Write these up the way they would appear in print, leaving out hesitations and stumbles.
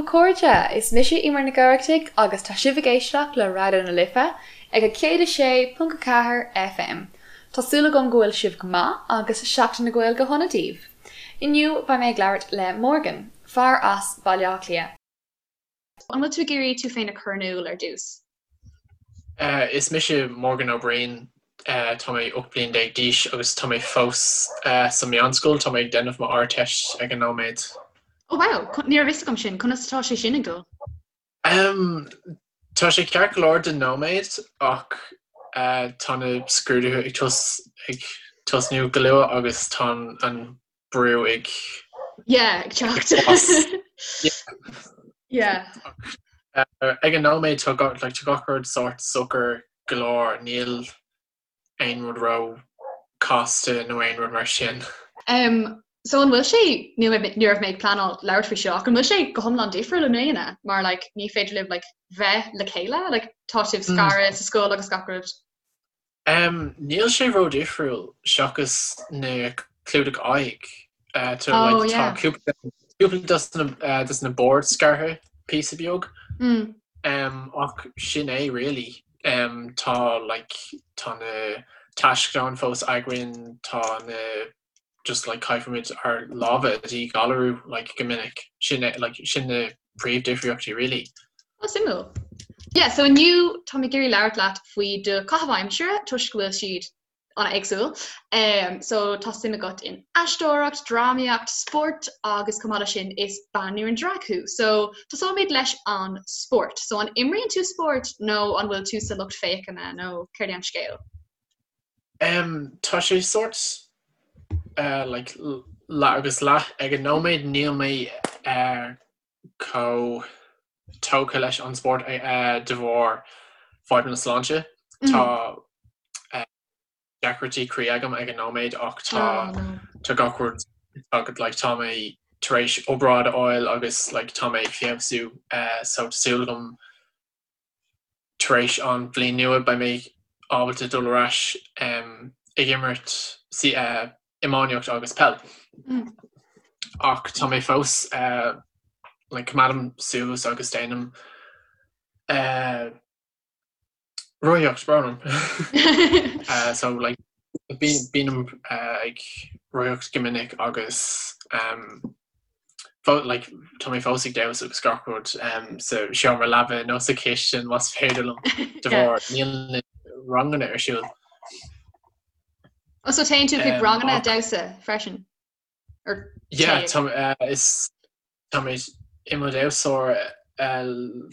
daoibh a chairde! Is mise Eimear Nic Oireachtaigh agus tá sibh ag éisteacht le Raidió na Life ag 106.4 FM. Tá súil agam go bhfuil sibh go maith agus Seachtain na Gaeilge shona daoibh! Inniu beidh mé ag labhairt le Morgan, fear as Baile Átha Cliath. An bhfuil tú ag iarraidh tú féin a chur in iúl ar dtús? Is mise Morgan Ó Briain, tá mé 18 bliain d'aois agus tá mé fós sa meánscoil, tá mé ag déanamh mo Ardteist ag an nóiméad. Oh wow, ní raibh fhios agam sin, conas atá sé sin ag dul? Tá sé ceart go leor don nóiméad ach tá na scrúduithe ag tos ag tosnú go luath agus tá an brú ag Yeah, ag teacht. Yeah. Ag an nóiméad tá like, tá gach rud sórt socair go leor, níl aon rud ró casta nó aon rud mar sin. Um, so an bhfuil sé ní ní raibh mé ag pleanáil labhairt faoi seo ach an bhfuil sé go hiomlán difriúil i mbliana mar like, ní féidir libh like, bheith le chéile like, tá sibh scartha sa scoil agus gach rud. Um, níl sé ró difriúil seachas na clúdaigh aghaidh. Uh, tá, Oh, like, tá yeah. cúpla cúpla dos na, uh, dos na boird scartha píosa beag. Mm. Um, ach sin é really. Um, tá like, tá na taisceadáin fós againn, tá na just like caithfimid ár lámha a dhíghalarú like go minic. Sin é like sin na príomhdhifríochtaí really. Oh, suimiúil. Yeah, so inniu tá mé ag iarraidh labhairt leat faoi do chaitheamh aimsire toisc go bhfuil siad an-éagsúil. Um, so tá suim agat in aisteoireacht, drámaíocht, spórt agus chomh maith leis sin is banríon drag thú. So tosóimid leis an spórt. So an imríonn tú spórt nó an bhfuil tú sa lucht féachana nó céard é an scéal? Um, tá sé sórt uh, like, leath agus leath ag an nóiméad níl mé uh, chomh tógtha leis an spórt uh, de bharr fadhbanna sláinte. Tá uh, deacrachtaí croí agam ag an nóiméad ach tá Oh, no. tá gach rud tá like, tá mé tar éis obráid a fháil agus like, tá mé ag feabhsú uh, so tá súil agam tar éis an bhliain nua beidh mé ábalta dul ar ais um, ag imirt sí, uh, iománaíocht agus peil. Mm. Ach tá mé fós uh, like, coimeádaim suas agus déanaim uh, rothaíocht brón orm. Uh, so like, bím uh, ag rothaíocht go minic agus um, like, tá mé fós ag damhsa agus gach rud um, sa seomra leaba nó sa chistin más féidir liom de bharr níl na ranganna ar siúl. Oh, so téann tú chuig ranganna damhsa freisin? Or Yeah, tá, uh, is tá mé i mo dhamhsóir uh,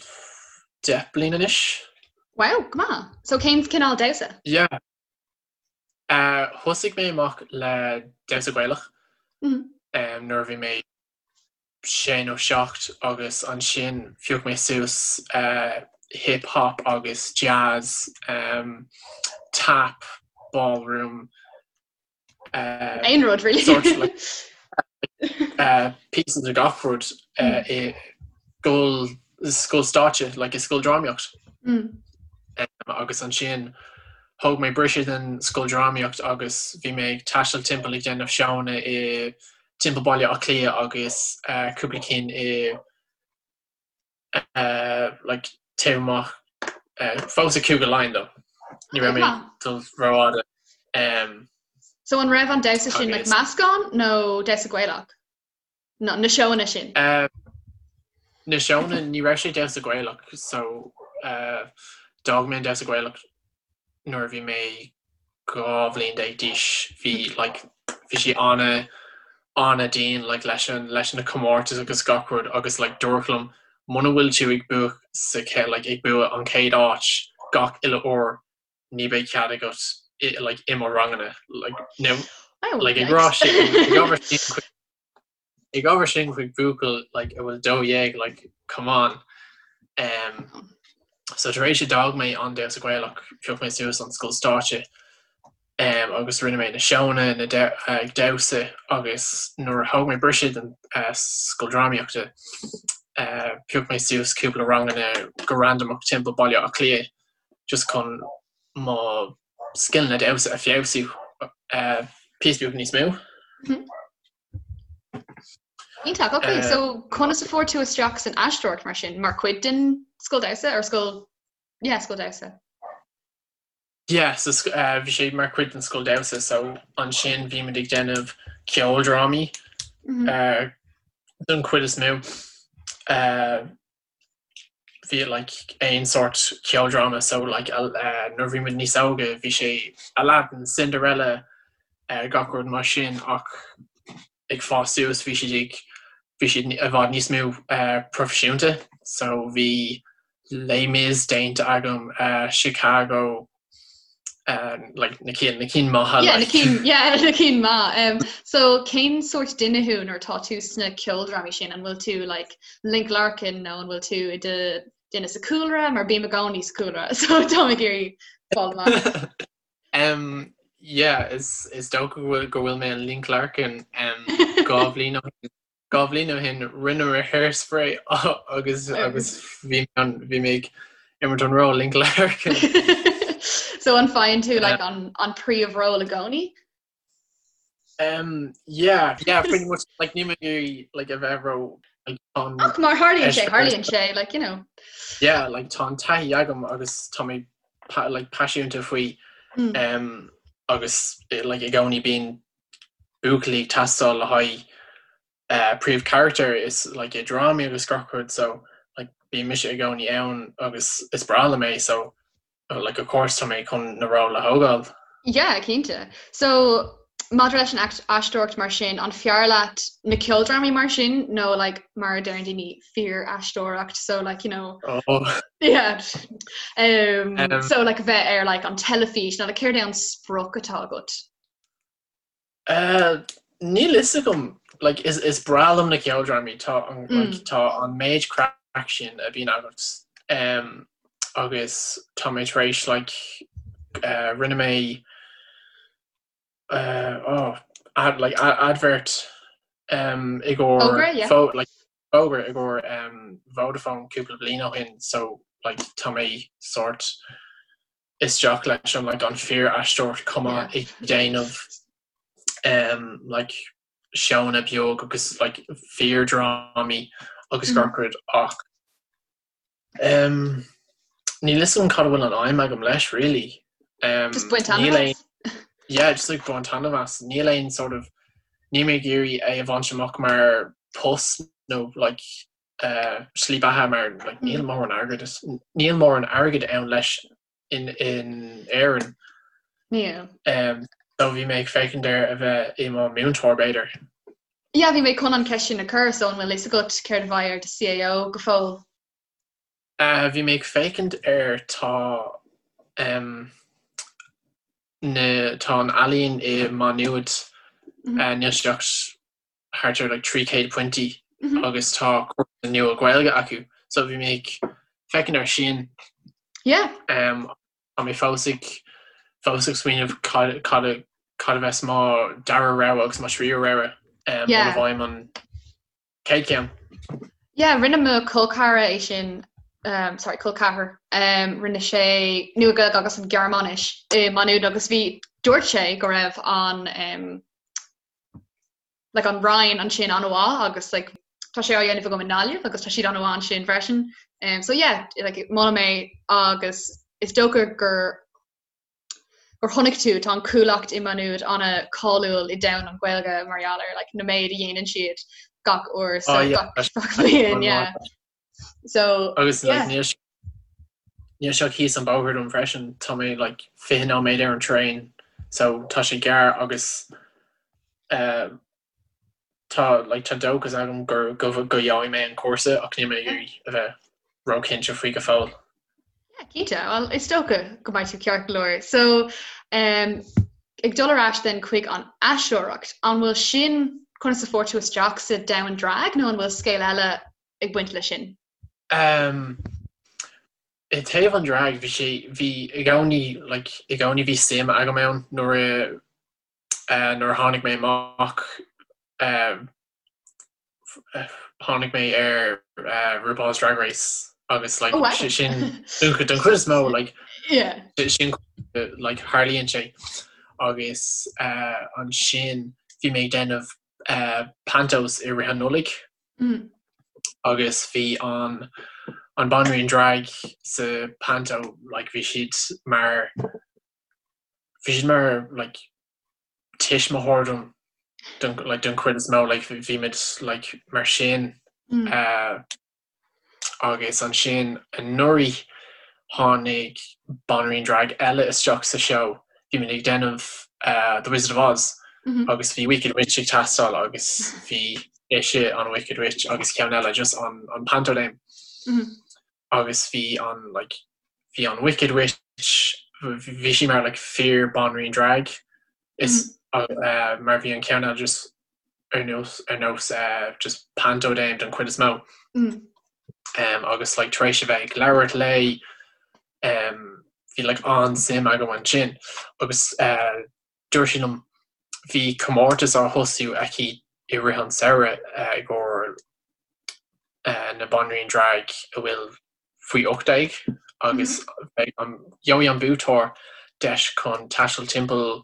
10 bliain anois. Wow, go maith. So cén cineál damhsa? Yeah. Uh, thosaigh mé amach le damhsa Gaelach mm. um, nuair a bhí mé sé nó seacht agus ansin phioc mé suas uh, hip hop agus jazz, um, tap, ballroom, uh, Aon rud really. sort like, uh, pieces de gach rud uh, i scoil scoil stáitse, like i scoil drámaíocht. Mm. Um, agus ansin thóg mé briseadh den scoil drámaíocht agus bhí mé ag taisteal timpeall ag déanamh seónna i timpeall Baile Átha Cliath agus uh, cúpla cinn i uh, like, taobh amach uh, fós i Cúige Laighean though. Ní raibh mé dul rófhada. Um, So an raibh an damhsa sin like, Agus- meascán nó damhsa Gaelach? No, na seónna sin. Uh, na seónna ní raibh sé damhsa Gaelach so uh, d'fhág mé an damhsa Gaelach nuair a bhí mé 12 bhliain d'aois. Bhí like, bhí sé ana ana dian like, leis an leis na comórtais agus gach rud agus like, dúradh liom muna bhfuil tú ag bua sa like, ag bua an chéad áit gach uile uair ní bheidh cead agat i, like, i mo ranganna like, no, Oh, like, ag yikes. rá sin ag ábhar sin chuig ag ábhar sin chuig buachaill like, a bhfuil 12 like, come on. Um, so tar éis a d'fhág mé an damhsa Gaelach phioc mé suas an scoil stáitse um, agus rinne mé na seónna na de ag damhsa agus nuair a thóg mé briseadh den uh, scoil drámaíochta uh, phioc mé suas cúpla ranganna go randamach timpeall Baile Átha Cliath just chun mo scileanna damhsa a feabhsú uh, píosa beag níos mó. Mm. Iontach, ok, so conas a fuair tú isteach san aisteoireacht mar sin, mar chuid den scoil damhsa or scoil, yeah, scoil damhsa? Yeah, so bhí sé mar chuid den scoil damhsa, so ansin bhí muid ag déanamh ceoldrámaí don chuid is mó. Bhí like aon sórt ceoldráma, so like nuair a bhí muid níos óige bhí sé Aladdin, Cinderella, gach rud mar sin ach ag fás suas bhí siad ag bhí siad i bhfad níos mó proifisiúnta so bhí Les Mis déanta agam, Chicago, like na cinn na cinn maithe Yeah, na cinn yeah, na cinn maith. Um, so cén sórt duine thú nuair atá tú sna ceoldrámaí sin? An bhfuil tú like Link Larkin nó an bhfuil tú i do duine sa cúlra mar bím i gcónaí sa cúlra so tá mé ag iarraidh fáil amach. Um, yeah, is, is dócha go bhfuil go bhfuil mé an Link Larkin um, 2 bhliain ó shin 2 bhliain ó shin rinne mé Hairspray agus agus bhí an bhí mé ag imirt an ról Link Larkin. So an faigheann tú like an an príomhról i gcónaí? Um, yeah, yeah, pretty much like níl mé ag iarraidh like a bheith ró like an Ach mar tharlaíonn sé, tharlaíonn sé, like you know. Yeah, like tá an taithí agam agus tá mé pa like paisiúnta faoi mm. um, agus like i gcónaí bíonn buachaillí ag teastáil le haghaidh príomhcharachtar is like i drámaí agus gach rud so like bíonn mise i gcónaí ann agus is breá liom é so like of course tá mé chun na ról a thógáil. Yeah, cinnte. So maidir leis an aisteoireacht mar sin, an fearr leat na ceoldrámaí mar sin nó like mar a deireann daoine fíor-aisteoireacht so like you know oh. yeah um, um, so like bheith ar like an teilifís nó like céard é an sprioc atá agat? Níl fhios agam, like is is breá liom na ceoldrámaí, tá an like tá an méid craic sin a bhíonn agat um agus tá mé tar éis like rinne mé oh ad like advert um i gcomhair Fógra, yeah. fó like fógra i gcomhair um Vodafone cúpla bliain ó shin so like tá mé sort isteach leis an like an fíor-aisteoireacht chomh maith ag déanamh um like seónna beag agus like fíor-drámaí agus gach rud ach um níl fhios agam cad a bhfuil an aidhm agam leis really. Um Just baint taitneamh as? Yeah, just like baint taitneamh as. Níl aon sort of níl mé ag iarraidh é a bhaint amach mar post nó like slí beatha mar like níl mórán airgead níl mórán airgead ann leis in in Éirinn. Níl. Um, so bhí mé ag féachaint ar a bheith i mo mhúinteoir b'fhéidir. Yeah, bhí mé chun an ceist sin a chur, so an bhfuil fhios agat céard a bheidh ar do CAO go fóill? Uh, bhí mé ag féachaint ar tá um, na, tá an ealaín i Má Nuad mm -hmm. uh, níl sé ach thart ar like 300 pointí agus tá cúrsa nua Gaeilge acu so bhí mé ag féachaint ar sin. Yeah. Um, tá mé fós ag fós ag smaoineamh cad cad a cad a bheas mo dara rogha agus mo thríú rogha um, yeah. muna bhfaighim an chéad cheann. Yeah, rinne mo chol ceathrar é sin um, sorry, col ceathrar um, rinne sé Nua-Ghaeilge agus an Ghearmáinis i Má Nuad agus bhí dúirt sé go raibh an um, like an Roinn ansin an-mhaith agus like tá sé á dhéanamh agam i nGaillimh agus tá siad an-mhaith ansin freisin. Um, so yeah, like molaim é agus is dócha gur gur chonaic tú tá an Chuallacht i Má Nuad an-cháiliúil i domhan an Ghaeilge mar gheall ar like na méid a dhéanann siad gach uair so Oh, yeah. gach gach bliain yeah. So Agus yeah. like, níl sé- níl sé thíos an bóthar dom freisin, tá mé like 20 nóiméad ar an traein so tá sé gearr agus eh, tá like tá dóchas agam gur go go gheobhaidh mé an cúrsa ach níl mé ag iarraidh a bheith róchinnte faoi go fóill. Yeah, cinnte. Well, is dócha go mbeidh tú ceart go leor. So, um, ag dul ar ais then chuig an aisteoireacht, an bhfuil sin conas a fuair tú isteach sa domhan drag nó an bhfuil scéal eile ag baint leis sin? Um, I dtaobh an drag, bhí sé, bhí i gcónaí, like, i gcónaí bhí suim agam ann nuair a, uh, nuair a tháinig mé amach, uh, tháinig mé ar uh, RuPaul's Drag Race agus like, Oh, wow. sin don don chuid is mó like, Yeah. sin like, tharlaíonn sé agus uh, ansin bhí mé ag déanamh pantos i rith an Nollaig agus bhí an an banríon drag sa panto like bhí siad mar bhí siad mar like tuismitheoir dom don like don chuid is mó like bhí muid like mar sin Agus ansin anuraidh tháinig banríon drag eile isteach sa seó. Bhí muid ag déanamh The Wizard of Oz agus bhí Wicked Witch ag teastáil agus bhí ise an Wicked Witch agus ceann eile just an an Panto Dame. Agus bhí an like bhí an Wicked Witch bhí sí mar like fíor banríon drag is mar bhí an ceann eile just ar nós ar nós just panto dame don chuid is mó. Agus like tar éis a bheith ag labhairt léi bhí like an-suim agam ansin agus dúirt sí liom bhí comórtas á thosú aici i rith an samhradh i gcomhair na banríon drag a bhfuil faoi 18 agus beidh an gheobhaidh an buaiteoir deis chun taisteal timpeall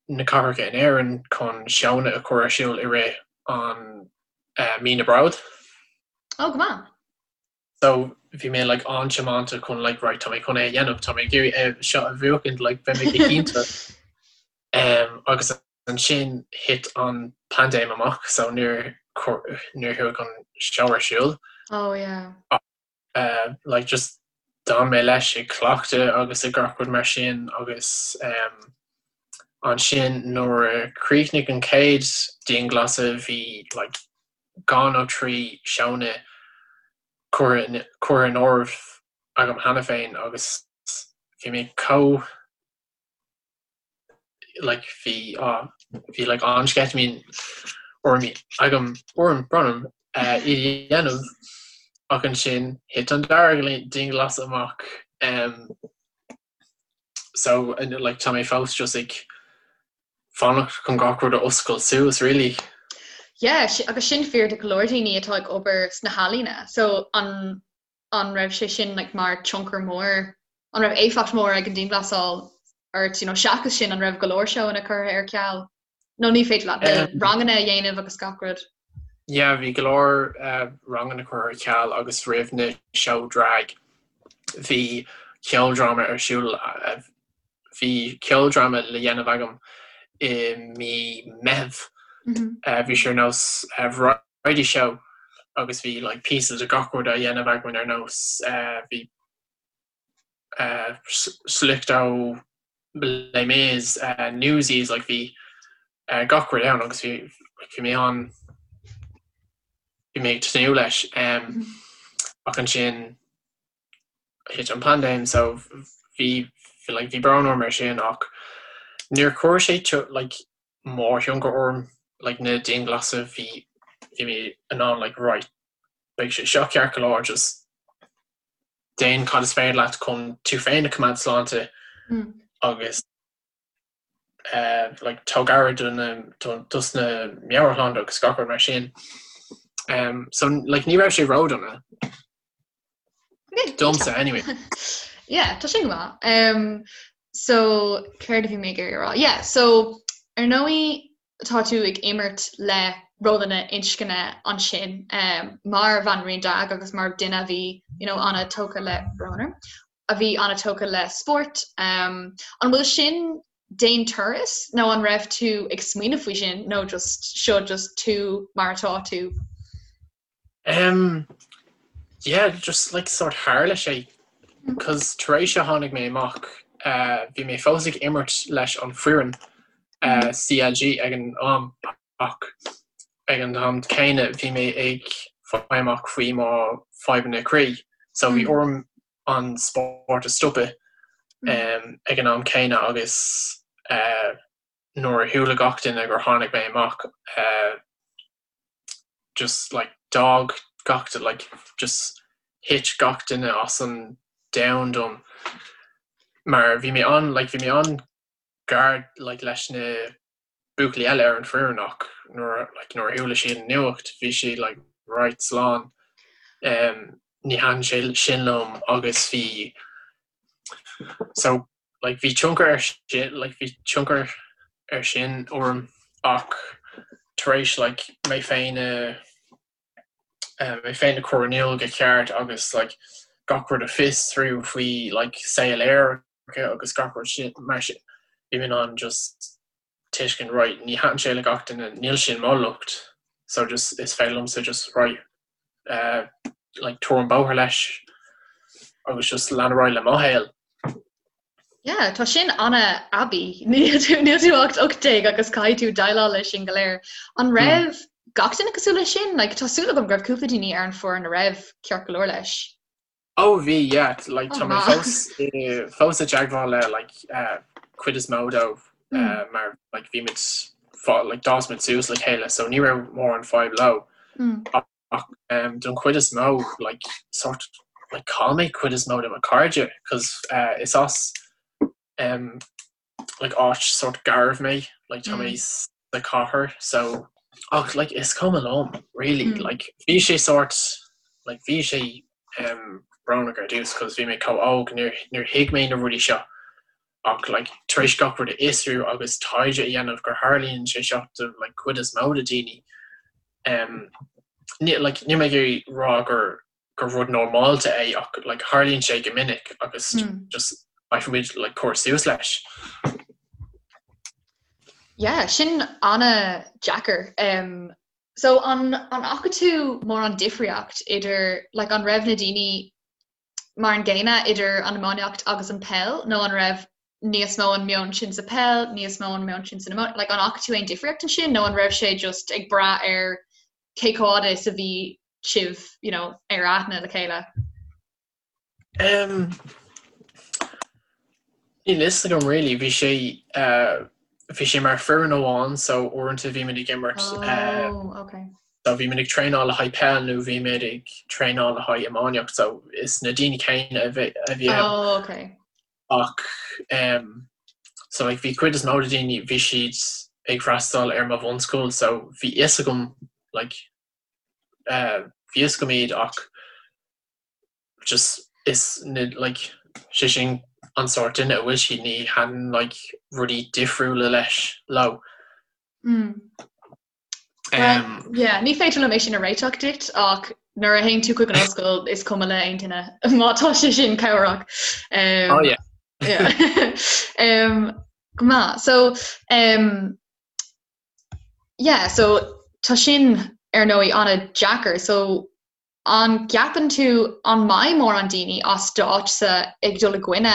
na cathracha in Éirinn chun seónna a chur ar siúl i rith an mí na Bród. Oh, go maith. So bhí mé like an-tiomanta chun like right tá mé chun é a dhéanamh, tá mé ag iarraidh é seo a bhuachaint like beidh mé go hiontach. Agus ansin thit an paindéim amach so níor níor chuaigh an seó ar siúl. Oh yeah. Like just d'fhan mé leis ag cleachtadh agus ag gach rud mar sin agus ansin nuair a chríochnaigh an chéad dianghlasáil bhí like dhá nó trí seónna curtha curtha in áirithe agam cheana féin agus bhí mé chomh like bhí ah bhí like an-sceitimíní orm agam orm brón orm iad a dhéanamh ach ansin thit an dara dianghlasáil amach so like tá mé fós just ag fanacht chun gach rud a oscailt suas really. Yeah, agus sin fíor do go leor daoine atá ag obair sna healaíona so an an raibh sé sin like mar tionchar mór, an raibh éifeacht mór ag an dianghlasáil ort, you know, seachas sin an raibh go leor seóanna curtha ar ceal? Nó ní féidir leat um, ranganna a dhéanamh agus gach rud? Yeah, bhí go leor uh, ranganna curtha ar ceal agus roimh na seó drag bhí ceoldráma ar siúl uh, bhí ceoldráma le dhéanamh agam i mí Meitheamh. Mm -hmm. uh, bhí sé ar nós uh, variety show agus bhí like píosa de gach rud á dhéanamh againn ar nós bhí sliocht ó Les Mis, Newsies like bhí gach rud ann agus bhí bhí mé an bhí mé ag tnúth leis ach ansin thit an paindéim so bhí like bhí brón orm ar sin ach níor chuir sé like mórthionchar orm like na dianghlasála bhí bhí mé in ann like right beidh sé seo ceart go leor just déan cad is féidir leat chun tú féin a choimeád sláinte agus uh, like tóg aire do na dos na meabhairshláinte agus gach rud mar sin. Um, so like ní raibh sé ródhona. Domsa anyway. Yeah, tá sin go maith. Um, so céard a bhí mé ag iarraidh a rá? Yeah, so ar ndóigh tá tú ag imirt le rólanna inscne ansin um, mar bhanríon drag agus mar duine a bhí you know, an-tógtha le brón orm, a bhí an-tógtha le spórt. Um, an bhfuil sin d'aon turas nó an raibh tú ag smaoineamh faoi sin nó just seo just tú mar atá tú? Um, yeah, just like sort tharla sé cos tar éis a tháinig mé amach uh, bhí mé fós ag imirt leis an foireann uh, CLG ag an am ach ag an am céanna bhí mé ag fáil amach faoi mo fadhbanna croí so bhí orm an spórt a stopadh um, ag an am céanna agus uh, nuair a chuala gach duine gur tháinig mé amach uh, just like d'fhág gach like just thit gach duine as an domhan dom mar bhí mé an like bhí mé an-ghar like leis na buachaillí eile ar an foireann ach nuair like nuair a chuala siad an nuacht bhí siad like right slán um, ní thaitin sé sin liom agus bhí so like bhí tionchar ar sin like bhí tionchar ar sin orm ach. tar éis like mé féin a mé féin a chur in iúl go ceart agus like gach rud a fiosrú faoi like saol aerach agus gach rud sin mar sin bhí mé in ann just tuiscint right ní thaitin sé le gach duine níl sin mo locht so just is féidir liomsa just right uh, like tabhair an bóthar leis agus just lean ar aghaidh le mo shaol. Yeah, tá sin an-aibí. Níl tú níl tú ach 18 agus caithfidh tú déileáil leis sin go léir. An raibh mm. gach duine cosúil leis sin? Like, tá súil agam go raibh cúpla daoine ar an foireann a raibh ceart go leor leis. Oh bhí, yeah, like, tá mé fós fós i dteagmháil le like, uh, cuid is mó dóibh mm. uh, mar like, bhí muid like, d'fhás muid suas le chéile, so ní raibh mórán fadhb leo. Mm. Ach um, don chuid is mó like, sort like, chaill mé cuid is mó de mo chairde cos uh, is as um, like, áit sort garbh mé like, tá mé mm. sa chathair so ach like, is cuma liom really mm. like, bhí sé sort like, bhí sé um, brónach ar dtús cos bhí mé chomh óg níor níor thuig mé na rudaí seo ach like, tar éis gach rud a fhiosrú agus taighde a dhéanamh gur tharlaíonn sé seo do like, cuid is mó de daoine Um, ní, like, níl mé ag iarraidh rá gur, gur rud normálta é ach like, tharlaíonn sé go minic agus mm. just caithfidh muid like, cur suas leis. Yeah, sin an-deacair. Um, so an, an fhaca tú mórán difríocht idir like, an raibh na daoine mar an gcéanna idir an iománaíocht agus an peil nó an raibh níos mó an meon sin sa peil, níos mó an meon sin san iománaíocht, like an fhaca tú aon difríocht ansin nó an raibh sé just ag brath ar cé chomh fada is a bhí sibh, you know, ar aithne le chéile? Um, níl fhios agam really, bhí sé uh, bhí sé mar foireann amháin so uaireanta bhí muid ag imirt uh, Oh, okay. So bhí muid ag traenáil le haghaidh peil nó bhí muid ag traenáil le haghaidh iománaíocht so is na daoine céanna a bhí a bhí ann. Oh, okay. Ach um, so like bhí cuid is mó de daoine bhí siad ag freastal ar mo bhunscoil so bhí fhios agam like uh, bhí fhios agam iad ach just is na like sé sin an sórt duine a bhfuil siad ní thaitníonn like rudaí difriúla leis leo. Mm. Well, yeah, ní féidir liom é sin a réiteach duit ach nuair a théann tú chuig an ollscoil is cuma le aon duine má tá sé sin cabhrach. Um, oh, yeah. yeah. um, go maith. So, um, yeah, so tá sin ar ndóigh an-deacair. So An gceapann tú an mbeidh mórán daoine as d'áitse ag dul i gcoinne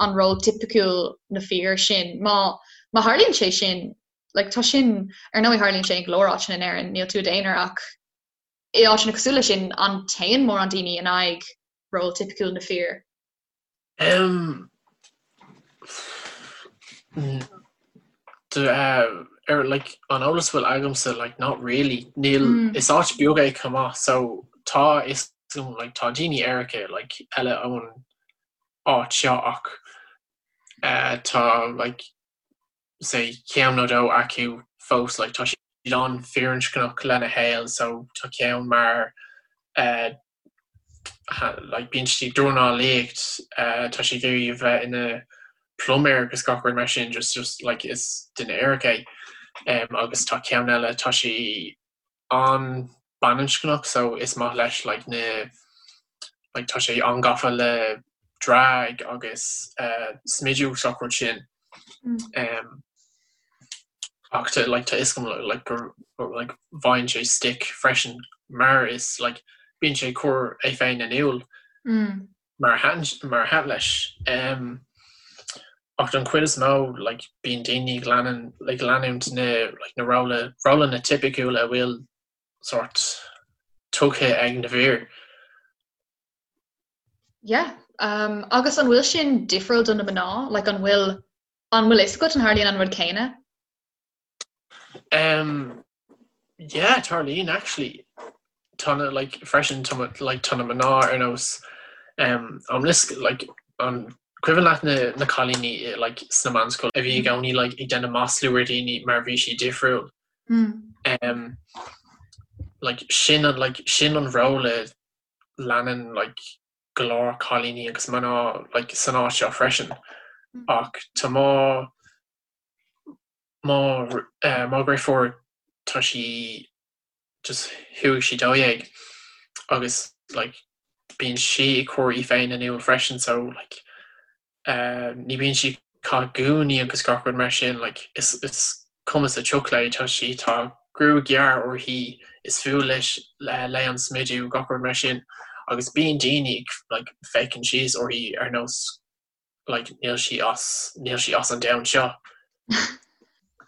an ról tipiciúil na fir sin? Má má tharlaíonn sé sin, like tá sin, ar ndóigh tharlaíonn sé in go leor áiteanna in Éirinn, níl tú i d'aonar ach i áiteanna cosúil leis sin, an téann mórán daoine in aghaidh ról tipiciúil na fir? Um, ar like an eolas bhfuil agamsa like not really níl mm. is áit beag é chomh maith so tá is like tá daoine aeracha like eile ón áit seo ach uh, tá like say ceann nó dó acu fós like tá siad an-fhirinscneach lena shaol so tá ceann mar uh, like bíonn sé ag dornálaíocht, tá sé ag iarraidh a bheith ina pluiméir agus gach rud mar sin, just just like is duine aerach é. Um, agus tá ceann eile, tá sé an-bhaininscneach so is maith leis like na like tá sé an-gafa le drag agus uh, smidiú agus gach rud sin. Um, ach tá like tá fhios agam like gur like bhfaigheann sé stick freisin mar is like bíonn sé ag cur é féin in iúl mar a thaitin mar a thaitin leis. Um, ach don chuid is mó like bíonn daoine ag leanann ag leanúint na like na róla rólanna tipiciúla a bhfuil sort tugtha ag na fir. Yeah, um, agus an bhfuil sin difriúil do na mná? Like an bhfuil an bhfuil fhios agat an tharlaíonn an rud céanna? Um, yeah, tarlaíonn actually. Tá na like freisin tá like tá na mná ar nós um, an lis like an cuimhin leat na, na cailíní like sna meánscoil a bhí i gcónaí like ag déanamh maslú ar daoine mar bhí siad difriúil. Mm. Um, like sin an like sin an ról a leanann like go leor cailíní agus mná like san áit seo freisin ach tá mo mo eh, mo dheirfiúr. tá sí just chuaigh sí 12 agus like bíonn sí ag cur í féin in iúl freisin so like eh ní bíonn sí ag caitheamh gúnaí agus gach rud mar sin like is is cuma sa tsioc léi tá sí tá gruaig ghearr uirthi is fuath leis léi an smidiú gach rud mar sin agus bíonn daoine ag like féachaint síos uirthi ar nós like níl sí as níl sí as an domhan seo.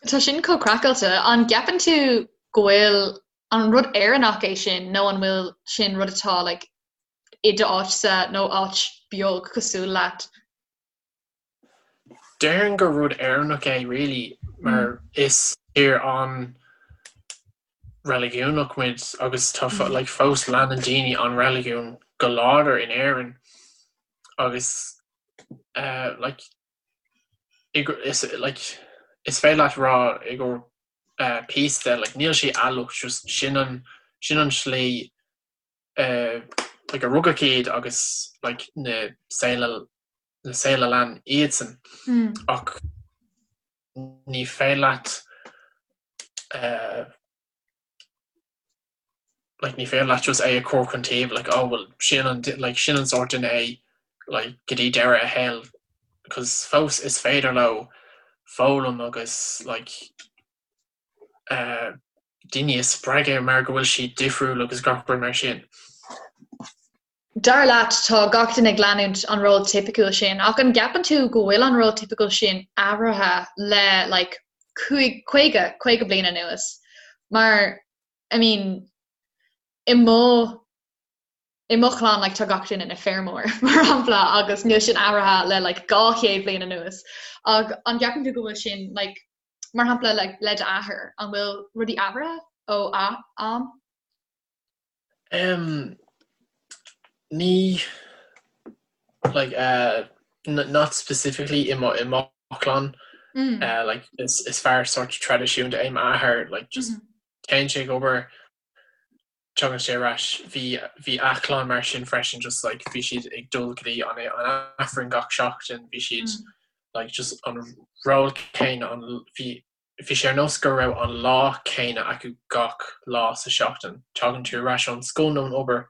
Tá sin chomh craiceáilte. An gceapann tú go bhfuil an rud Éireannach é sin nó an bhfuil sin rud atá like i d'áitse nó áit beag cosúil leat? Déarfainn gur rud Éireannach é really mar is tír an reiligiúnach muid agus tá like fós leanann daoine an reiligiún go láidir in Éirinn. agus eh like is like is féidir leat rá i gcomhair eh píosa de like níl sé eallach just sin an sin an slí eh like a rugadh iad agus like na saol a na saol a lean iadsan ach ní féidir leat eh like ní féidir leat just é a chur chun taobh like oh well sin an like sin an sórt duine é like go dtí deireadh a shaoil cos fós is féidir leo foghlaim agus like eh daoine a spreagadh mar go bhfuil siad difriúil agus gach rud mar sin. Dar leat, tá gach duine ag leanúint an ról tipiciúil sin, ach an gceapann tú go bhfuil an ról tipiciúil sin athraithe le like cúig, 50, 50 bliain anuas? Mar, I mean, i mo, i mo chlann like tá gach duine ina feirmeoir, mar shampla, agus níl sin athraithe le like 200 bliain anuas. Ach an gceapann tú go bhfuil sin like, mar shampla like le d'athair, an bhfuil rudaí athraithe ó am? Um, ní like uh, not specifically i mo i mo chlann mm. uh, like is is fear sort traidisiúnta é m'athair like just mm -hmm. téann sé ag obair tagann sé ar ais bhí bhí a chlann mar sin freisin just like bhí siad ag dul go dtí an an Aifreann gach seachtain bhí siad mm. like just an ról céanna an bhí Bhí sé ar nós go raibh an lá céanna acu gach lá sa seachtain. Tagann tú ar ais ón scoil nó ón obair,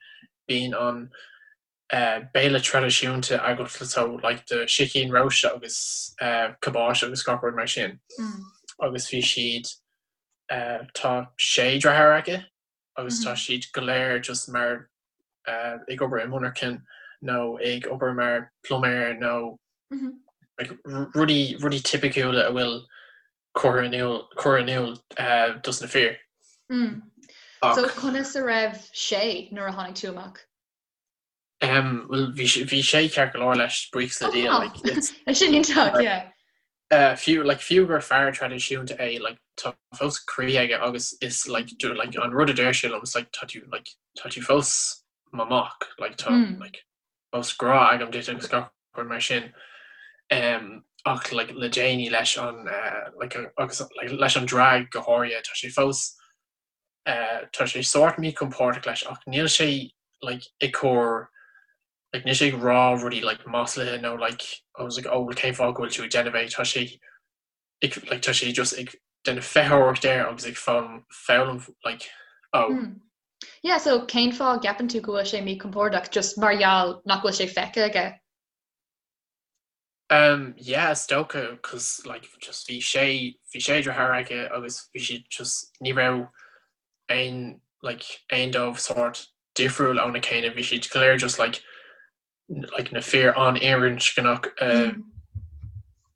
bíonn an béile traidisiúnta agat so like do sicín rósta agus cabáiste agus gach rud mar sin. Agus bhí siad, tá sé deartháir aici agus tá siad go léir just mar ag obair i monarchain nó ag obair mar pluiméir nó like rudaí rudaí tipiciúla a bhfuil curtha in iúl curtha in iúl dos na fir. So conas a raibh sé nuair a tháinig tú amach? Um, well bhí sé bhí sé ceart go leor leis buíochas le Dia like it's Sin iontach, yeah. Uh, fiú like fiú gur fear traidisiúnta é like tá fós croí aige agus is like do like an rud a deir sé liom is like tá tú like tá tú fós mo mhac like tá mm. like fós grá agam duit agus gach rud mar sin um, ach like le déanaí leis an uh, like agus like leis an drag go háirithe tá sé fós uh, tá sé sórt míchompordach leis ach níl sé like ag cur like níl sé ag rá rudaí like maslaithe nó like I was like oh well cén fáth go bhfuil tú ag déanamh é tá sé ag like tá sé just ag déanamh feitheoireacht air agus ag foghlaim foghlaim like oh mm. Yeah, so cén fáth a gceapann tú go bhfuil sé míchompordach just mar gheall nach bhfuil sé feicthe aige? Um yeah is dócha cos like just bhí sé bhí sé deartháir aige agus bhí siad just ní raibh aon like aon dóibh sórt difriúil óna chéile bhí siad go léir just like like na fir an-fhirinscneach uh, mm.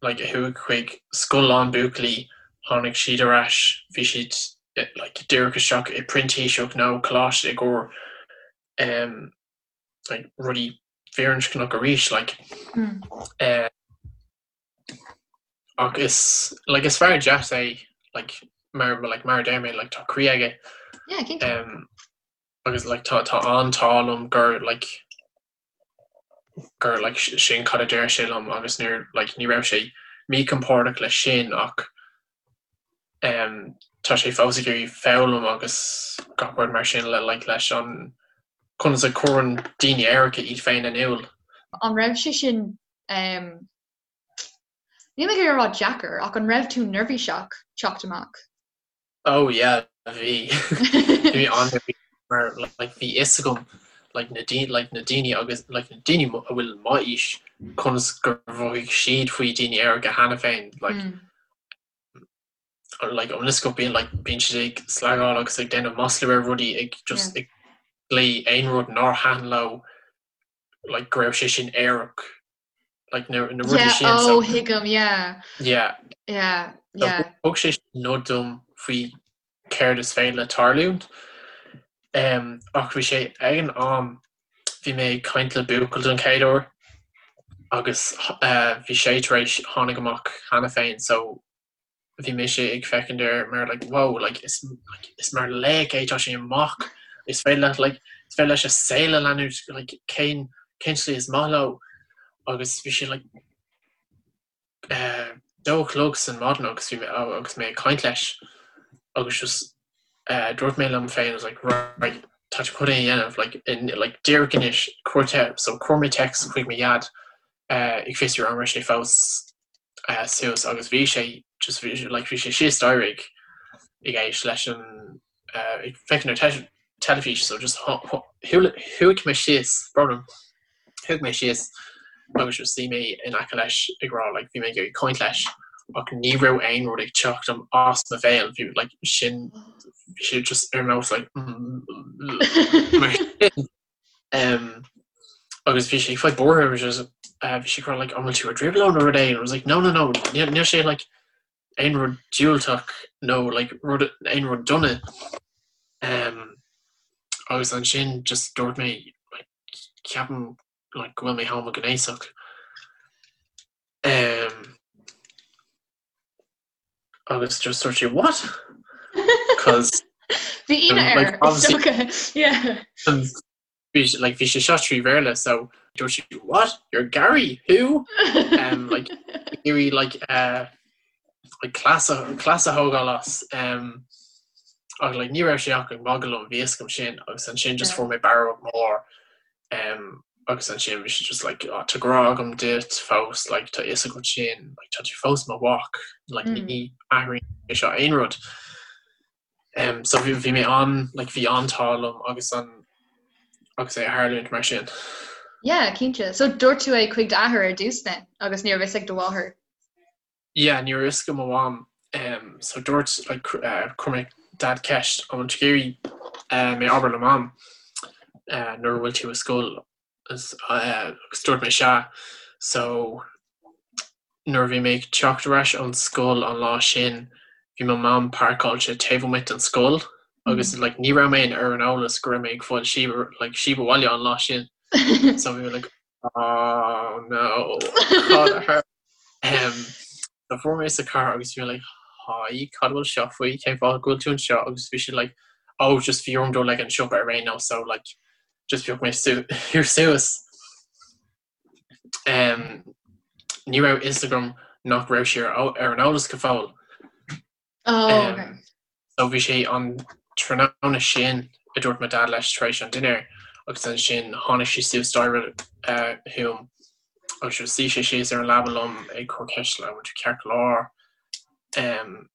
like a chuaigh chuig scoil lán buachaillí tháinig siad ar ais bhí siad eh, like díreach isteach i printíseacht nó coláiste i gcomhair um, like rudaí firinscneach arís like mm. uh, ach is like is fear deas é like mar like mar a deir mé like tá croí aige yeah, um, agus like tá tá an t-ádh liom gur like gur like sin cad a deir sé liom agus níor like ní raibh sé míchompordach leis sin ach um, tá sé fós ag iarraidh foghlaim agus gach rud mar sin le like leis an conas a chuireann daoine aeracha iad féin in iúl. An raibh sé sin um, níl mé ag iarraidh a rá deacair ach an raibh tú neirbhíseach teacht amach? Oh yeah. Bhí. Bhí mé an-neirbhíseach mar like bhí fhios agam like na daoine like na daoine agus like na daoine a bhfuil m'aois conas gur mhothaigh siad faoi daoine aeracha cheana féin like like an fhios agat bíonn like bíonn siad ag slagáil agus ag déanamh maslú ar rudaí ag just ag glaoh aon rud nár thaitin leo like go raibh sé sin aerach like na na rudaí sin so oh thuigim yeah yeah yeah yeah thug sé nod dom faoi céard is féidir le tarlúint um, ach bhí sé ag an am bhí mé ag caint le buachaill don chéad uair agus uh, bhí sé tar éis tháinig amach cheana féin so bhí mise ag féachaint air mar like wow like is like is mar laoch é tá sé amach is féidir leat like is féidir leis a saol a leanúint like cén cén slí is maith leo agus bhí sé like eh, dó a chlog san maidin agus bhí mé agus mé ag caint leis agus just eh, dúirt mé liom féin I was like right tá tú chun é a dhéanamh like in like díreach anois cuir te so chuir mé text chuig mo dhaid eh, ag fiosrú an raibh sé fós suas agus bhí sé just bhí sé like bhí sé síos staighre ag ag éist leis an ag féachaint ar teilifís so just shuigh mé síos brón orm shuigh mé síos agus just shuigh mé in aice leis ag rá like bhí mé ag iarraidh caint leis ach ní raibh aon rud ag teacht am as mo bhéal bhí like sin bhí sé just ar nós like mar sin Um, agus bhí sé ag fáil buartha bhí sé uh, bhí sé ag rá like, an bhfuil tú i dtrioblóid nó rud éigin? I was like, no, no, no, níl níl sé like, aon rud diúltach nó like, rud, aon rud dona. Um, agus ansin just dúirt mé like, ceapaim like, go bhfuil mé homaighnéasach. Um, agus just dúirt sé what? Cos Bhí ionadh air, is dócha, yeah. Bhí like bhí sé seo trí Bhéarla so dúirt sé what? You're Gary? Who? Um, like iarraidh like uh, like cleas a cleas a thógáil as um, ach like ní raibh sé ach ag magadh liom bhí fhios agam sin agus ansin just fuair mé barróg mór Um, agus ansin bhí sé just like, oh, tá grá agam duit fós, like, tá fhios agat sin, like, tá tú fós mo mhac, like, mm. ní athraíonn sé seo aon rud. Um, so bhí, bhí mé an, like, bhí an t-ádh liom agus an agus é a tharlúint mar sin. Yeah, cinnte. So dúirt tú é chuig d'athair ar dtús then agus ní raibh fhios ag do mháthair? Yeah, ní raibh fhios ag mo mham. Um, so dúirt, like, uh, chuir mé dad ceist an bhfuil tú ag iarraidh uh, mé abair le mam uh, nuair a bhfuil tú i scoil agus, uh, agus dúirt mé sea. So nuair a bhí mé ag teacht ar ais ón scoil an lá sin, bhí mo mam páirceáilte taobh amuigh den scoil agus mm. like, ní raibh mé ar an eolas go raibh mé ag fáil síob like, síob abhaile an lá sin. So bhí mé like, oh no, cad a tharla? Um, so fuair mé sa car agus bhí mé like, hi, cad bhfuil seo faoi, cén fáth go bhfuil tú anseo agus bhí sé like, oh, just bhí orm dul ag an siopa ar aon nós, so like, just phioc mé su suas. Um, ní raibh fhios agam nach raibh sí ar, ar an eolas go fóill. Oh, okay. So bhí sé an tráthnóna sin a dúirt mo dad leis tar éis an dinnéir agus ansin tháinig sé suas staighre chugam agus shuigh sé síos ar an leaba liom ag cur ceist like, bhfuil tú ceart go leor? Um,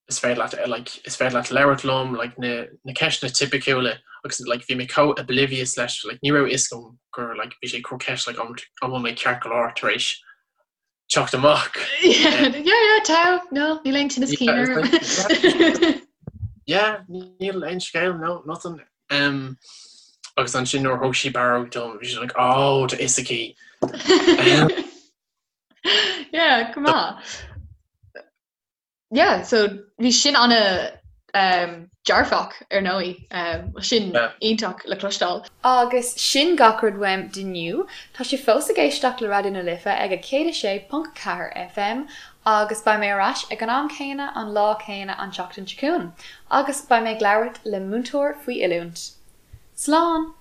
is féidir leat like, is féidir leat labhairt liom like, na, na ceisteanna tipiciúla agus like, bhí mé chomh oblivious leis like, ní raibh fhios agam gur like, bhí sé ag cur ceist like, an bhfuil mé ceart go leor tar éis teacht amach. Yeah, yeah, tá, no, níl aon tinneas cinn orm. Yeah, níl aon scéal, no, nothing. Um, agus ansin nuair thug sí barróg dom, bhí sí like, oh, tá fhios aici. Um, Yeah, go maith. Yeah, so bhí sin ana um, dearfach ar ndóigh, um, sin yeah. iontach le cloisteáil. Agus sin gach rud uaim d'inniu. Tá sibh fós ag éisteacht le Raidió na Life ag a 106.4 FM agus beidh mé ar ais ag an am céanna an lá céanna an tseachtain seo chugainn agus beidh mé ag labhairt le múinteoir faoi oiliúint. Slán!